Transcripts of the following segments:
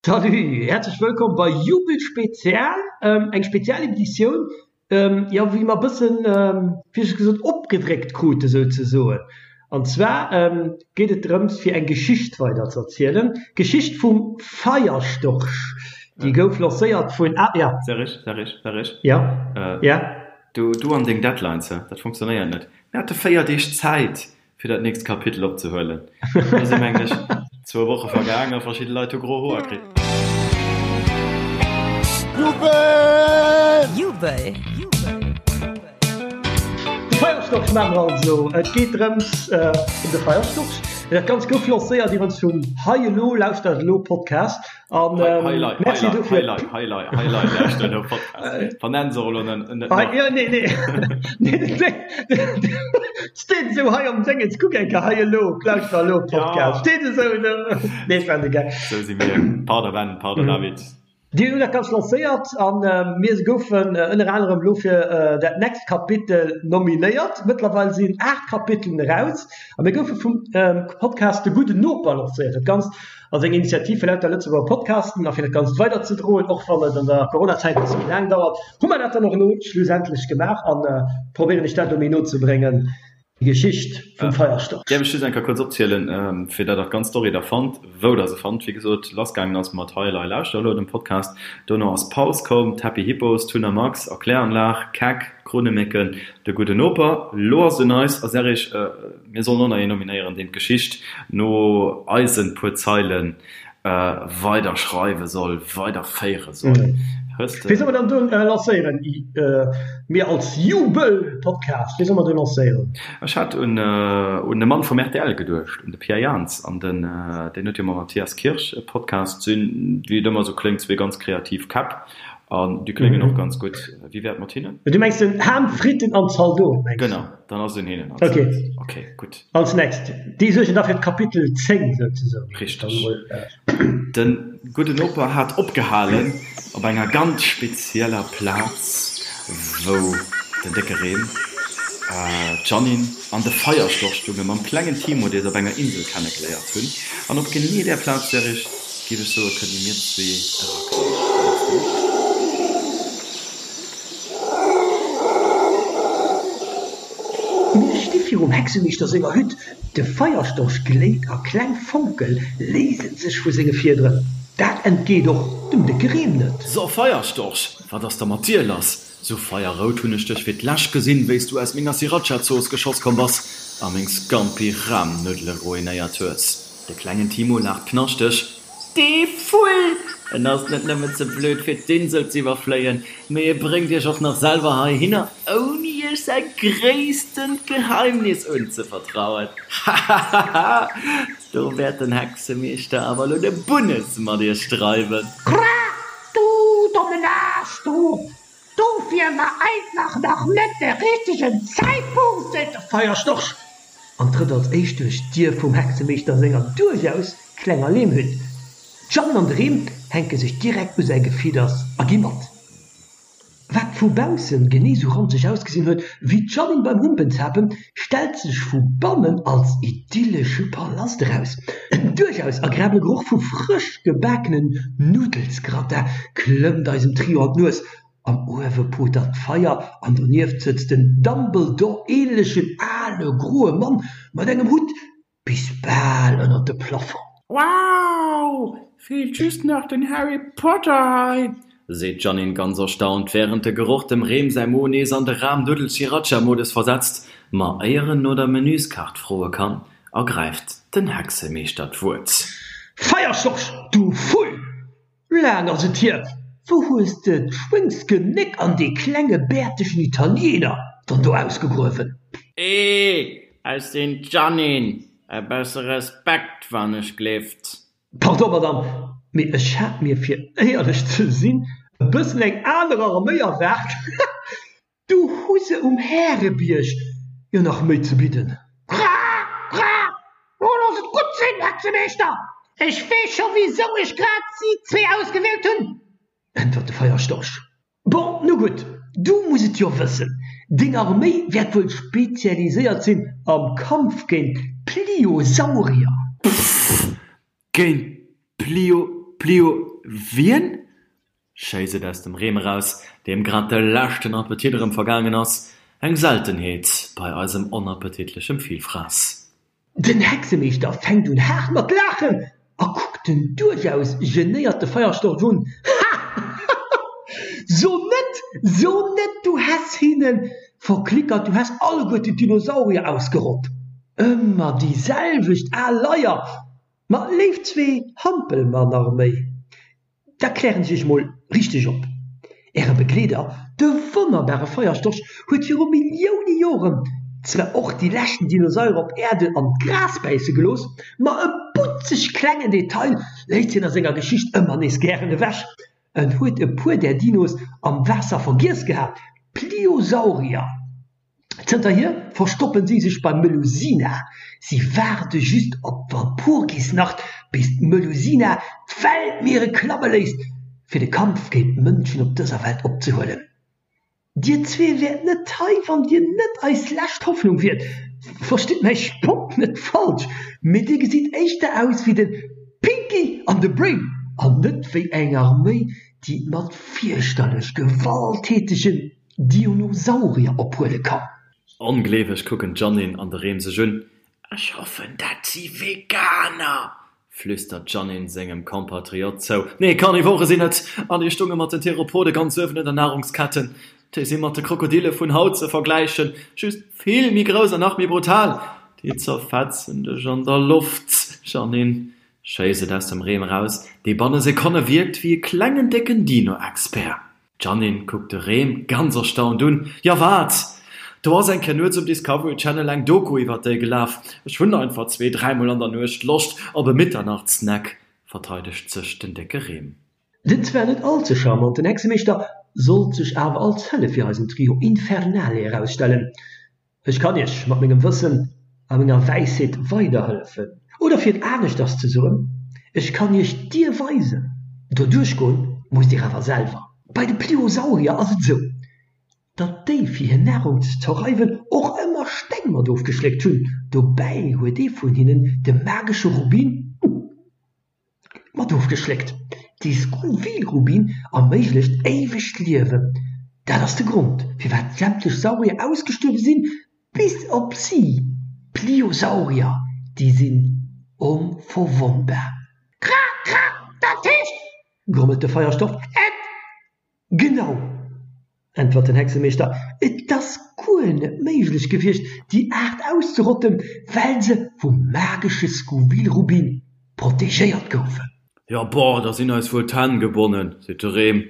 Salut, häerzlech wëllkomm bei Jubel Spezial, eng spezial Editioun, jo wéi mer bëssen, wéi ech gesot, opgedréckt krute souzesoen. An zwar geet et drëms fir eng Geschicht weider ze erzielen, d'Geschicht vum Feierstorch, déi gouf lancéiert vun, ah ja. Serge, Serge, Serge. Jo, ja. Du, du an deng Deadlines, hä, dat funktionéiert net. Mir hate 4 Deeg Zäit fir dat nächst Kapitel opzehuelen. Do si mengen ech zwou Woche vergaang a verschidde Leit hu gro Hoer kritt. Jubel! Jubel! De Feierstorch maache mer also. Et geet drëms ëm de Feierstorch. Dat Ganzt gouf lancéiert iwwerens vum Hei Elo, Lauschtert Elo Podcast. An Merci dofir. Hei, hei, hei, hei, hei, lauschtert elo Podcast. Vernenn se och elo net nach. Jo, nee, nee. Steet esou hei am Déngens, kuck eng Kéier, hei elo, lauschter elo Podcast. Steet esou do. Nee, ech maachen de Gag. Esou si mir. Pardon Ben, pardon David. Dir hutt dat Ganzt lancéiert an mir goufen ënner anerem elo fir dat next Kapitel nominéiert. Mëttlerweil sinn 8 Kapitelen eraus a mir goufe vum Podcast De Gudden Noper lancéiert. Dat Ganzt ass eng Initiativ fir lauter Lëtzebuerger Podcasten a fir dat Ganzt weiderzedroen, och wann et an der Coronazäit e bësse méi laang dauert, hu mer dat dann och elo schlussendlech gemaach a probéieren iech dat elo méi no ze bréngen. Geschicht vum Feierstorch. Däerf ech just eng Kéier kuerz opzielen, fir dat der d'ganz Story da fannt, wou der se fannt. Wéi gesot, lassgaangen ass mat Hei Elei Lauschter elo, dem Podcast. Dono ass Paus komm, d'Happy Hippos, Tun a Max, Erkläranlag, Keck, Krunnemécken, De gudden Noper. Lo ass et un eis a Serrig, mir sollen och nach een nominéieren, deen d'Geschicht no eisen puer Zeilen weider schreiwe soll, weider féiere soll. Hues de. Wéi soll mer dann do lancéieren? Mir als Jubel-Podcast, wéi soll mer do lancéieren? Ech hat un un de Mann vum rtl geduecht, un de Pierre Jans an den, deen huet jo mam Matthias Kirsch e Podcast, sinn, wéi et ëmmer esou kléngt, zwee ganz kreativ Käpp an déi kléngen och ganz gutt. Wéi wär et mat hinnen? Du mengs den Ham, Fritten an Zaldoten, mengs du? Genau, dann ass et un hinnen als nächst. Okay, gutt. Als next. Déi suergen da fir d'Kapitel 10 souzesoen. Richteg. De gudden Noper hat opgehalen op enger ganz spezieller Plaz, wou den décke Reen, d'Jeannine an de Feierstorch stounge mam klengen Timo, dee se op enger Insel kennegeléiert hunn. An op genee där Plaz, Serge, géif ech soen, kënne mir zwee eraklammen. Mengs de net? Mir sti virum Hexemeeschter senger Hütt. De Feierstorch gléit a kleng Fonke léise sech vu senge Fiederen. Dat entgeet och dem décke Rem net. So, Feierstorch, wat ass da mat dir lass? Sou feierrout hunn ech dech fir d'lescht gesinn, wéi s du aus menger Sriracha-Zooss geschoss komm bass a meng Scampi-Rahmnuddele ruinéiert hues. De klengen Timo laacht knaschteg. Dee Vull! En ass net nëmmen ze blöd fir d'Insel z'iwwerfléien, mee e bréngt iech och nach selwer heihinner, ouni iech säi gréisstent Geheimnis unzevertrauen. Hahahaha! Do wäert den Hexemeeschter awer elo de Bunnes mat iech dreiwen. Kra, du dommen Aarsch, du! Dofir war einfach nach net de richtegen Zäitpunkt, seet de Feierstorch an trëtt als éischt duerch d'Dier vum Hexemeeschter senger duerchaus klenger Leemhütt. D'Jeanne an de Rem hänke sech direkt u säi Gefidders a gi mat. Wat vu baussen genee sou ranzeg ausgesinn huet wéi d'Jeanne beim Humpenzapen, stellt sech vu bannen als idyllesche Palast eraus. En duerchaus agreabele Geroch vu frësch gebakenen Nuddelsgratin klëmmt eisem Trio an d'Nues. Am Uewe potert d'Feier an donieft sëtzt en Dumbledore-ähnlechen ale groe Mann mat engem Hutt bis bal ënnert de Plafong. Wow! Feelt just nach den Harry Potter hei! Seet d'Jeannine ganz erstaunt, wärend de Geroch dem Rem säi Mo nees an de Rahm-Nuddel-Sriracha-Modus versetzt. Ma éier en no der Menüskaart froe kann, ergräift den Hexemeeschter d'Wuert. Feierstorch, du Vull! Laang ass et hier! Wou hues de d'Schwéngsgenéck an dee klenge bäertegen Italiener dann do ausgegruewen? Eeh, ech sinn d'Jeannine! E bësse Respekt, wann ech gleeft! Pardon, Madame, mee ech hat mir, fir éierlech ze sinn, e bëssen eng aner Arméi erwaart. Du hu se um Härebierg jo nach méi ze bidden. Kra! Kra! Lo looss et gutt sinn, Hexemeeschter! Ech weess scho wisou ech grad si zwee ausgewielt hunn! Äntwert de Feierstorch. Bon, nu gutt, du muss et jo wëssen, deng Arméi wäert wuel spezialiséiert sinn am Kampf géint d'Pliosaurier. Pfff, géint d'Plio, Plio. Wien? Schéisst et aus dem Rem eraus, deem grad de leschten Appetit erëm vergaangen ass, eng Seltenheet bei eisem onappetitlechem Villfrass. Den Hexemeeschter fänkt un haart mat laachen a kuckt den duerchaus genéierte Feierstorch un, Hahahaha! So net, so net, du häss hinnen verklickert, du häss alleguerten d'Dinosaurier ausgerott! Ëmmer déi selwecht al Leier! Ma léif zwee Hampelmannarméi, Da klären ech iech mol richteg op. Äre Begleeder, de wonnerbare Feierstorch, huet viru Millioune Joren zwar och déi leschten Dinosaurier op Äerden an d'Gras bäisse gelooss, ma e butzeg klengen Detail léisst hien a senger Geschicht ëmmer nees gären ewech, En huet e puer där Dinos am Waasser vergiess gehat, Pliosaurier. Zënterhier verstoppen si sech beim Melusina. Si waarde just op d'Walpurgisnacht, bis d'Melusina d'Weltmiere klamme léisst, fir de Kampf géint d'Mënschen op dëser Welt opzehuelen. Dir zwee wäert net hei, wann dir net eis lescht Hoffnung wiert. Verstitt mäi Spott net falsch, mee dir gesitt éischter aus wéi de Pinky an de Brain an net wéi eng Arméi, déi et mat fierchterlech gewalttätegen Dinosaurier ophuele kann. Ongleeweg kucken d'Jeanine an de Rem sech un. Ech hoffen, dat si Veganer! flüstert d'Jeanine sengem Compatriot zou. Nee, Carnivore sinn et! An déi stunge mat den Theropode ganz uewen un der Nahrungsketten. Déi si mat de Krokodille vun haut ze vergläichen, just vill méi grouss an nach méi brutal. Déi zerfetzen dech an der Loft, Jeanine, schéisst et aus dem Rem eraus, dee banne Sekonne wierkt wéi e klengen décken Dino-Expert. D'Jeanine kuckt de Rem ganz erstaunt un. Jo wat? Do ass eng Kéier nuets um Discovery Channel eng Doku iwwert déi gelaf. Ech hunn einfach zwee, dräimol an der Nuecht Loscht op e Mitternachtssnack, verteidegt sech den décke Rem. Den zwar net all ze charmanten Hexemeeschter sollt sech awer als Hëllef fir eisen Trio Infernale erausstellen. Ech kann iech mat mengem Wëssen a menger Wäisheet weiderhëllefen. Oder fir et aneschters ze soen, ech kann iech d'Dier weisen, doduerch goen musst dir awer selwer. Bei de Pliosaurier ass et esou, datt déi fir hir Nahrung ze zerreiwen och ëmmer Steng mat ofgeschléckt hunn. Dobäi huet ee vun hinnen de magesche Rubin Mat ofgeschléckt. Dee Scoville-Rubin erméiglecht éiwegt Liewen. Dat ass de Grond, firwat sämtlech Saurier ausgestuerwe sinn, bis op si, d'Pliosaurier, déi sinn onverwonnbar. Kra, kra, dat heescht, grommelt de Feierstoff, et Genau, äntwert den Hexemeeschter, et ass guer net méiglech gewiescht, déi Aart auszerotten, well se vum magesche Scoville-Rubin protegéiert goufen. Jo, boah, da sinn eis wuel d'Hänn gebonnen, seet de Rem.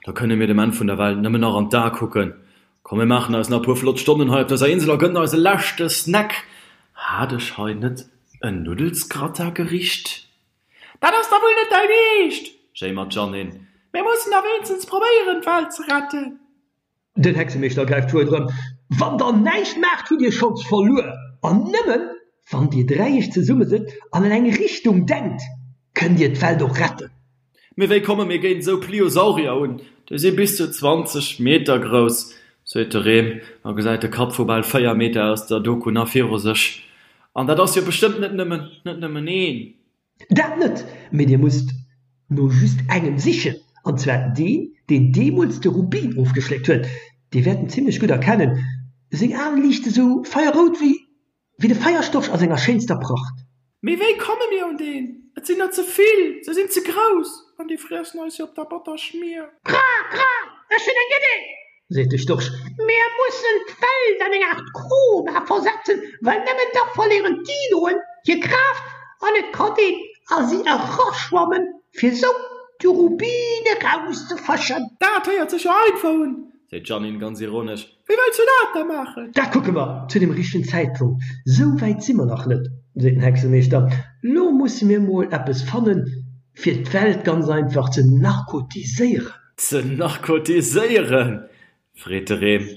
Da kënne mir dem Enn vun der Welt nëmmen nach an d'A kucken. Komm, mir maachen eis nach e puer flott Stonnen hei op dëser Insel a gënnen eis e leschte Snack. Hat ech hei net en Nuddelsgratin-Gericht? Dat ass da wuel net däin Eescht! jéimert d'Jeanine. Mir mussen da wéinstens probéieren, d'Welt ze retten! Den Hexemeeschter gräift d'Wuert erëm, Wann der näischt maacht, hutt dir schonns verluer! An nëmmen, wann dir dräi iech zesummesëtzt an an eng Richtung denkt, kënnt dir d'Welt och retten! Mee wéi komme mir géint esou Pliosaurier un? Déi si bis zu 20 Meter grouss, seet de Rem a gesäit de Kapp vu bal 4 Meter aus der Doku nach viru sech. An dat ass jo bestëmmt net nëmmen, net nëmmen een. Dat net, mee dir musst no just engem sichen, an zwar deen, deen deemools de Rubin ofgeschléckt huet. Dir wäert en zimlech gutt erkennen, seng Aen liichte sou feierrout wéi Wéi de Feierstorch a senger schéinster Pracht. Mee wéi komme mir un deen? Et sinn der ze vill, se sinn ze grouss an déi friessen eis jo op der Botterschmier. Kra, kra, ech hunn eng Idee! Seet de Storch. Mir mussen d'Welt an eng Aart Koma versetzen, well nëmmen da verléieren d'Dinoen hir Kraaft an et kann een a si eraschwammen, fir sou de Rubin erauszefëschen. Dat héiert sech jo einfach un, seet d'Jeanine ganz ironesch. Wéi wëlls du dat da maachen? Dat kucke mer zu dem richtegen Zäitpunkt. Sou wäit si mer nach net, seet den Hexemeeschter. Lo musse mir mol eppes fannen, fir d'Welt ganz einfach ze narkotiséieren. Ze narkotiséieren? freet de Rem.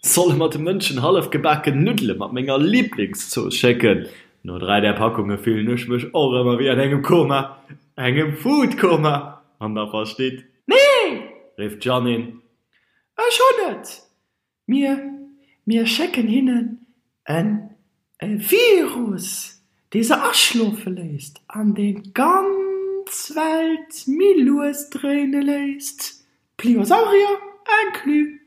Solle mer de Mënschen hallef gebaken Nuddele mat menger Liblingszooss schécken? No 3 där Packunge fillen ech mech och ëmmer wéi an engem Koma, engem Foodkoma, wann der verstitt. Nee! rifft d'Jeanine. Ech hunn et! Mir, mir schécken hinnen en e Virus, dee se aschlofe léisst an deen d'ganz. d'Welt méi lues dréine léisst, Pliosaurier inclus.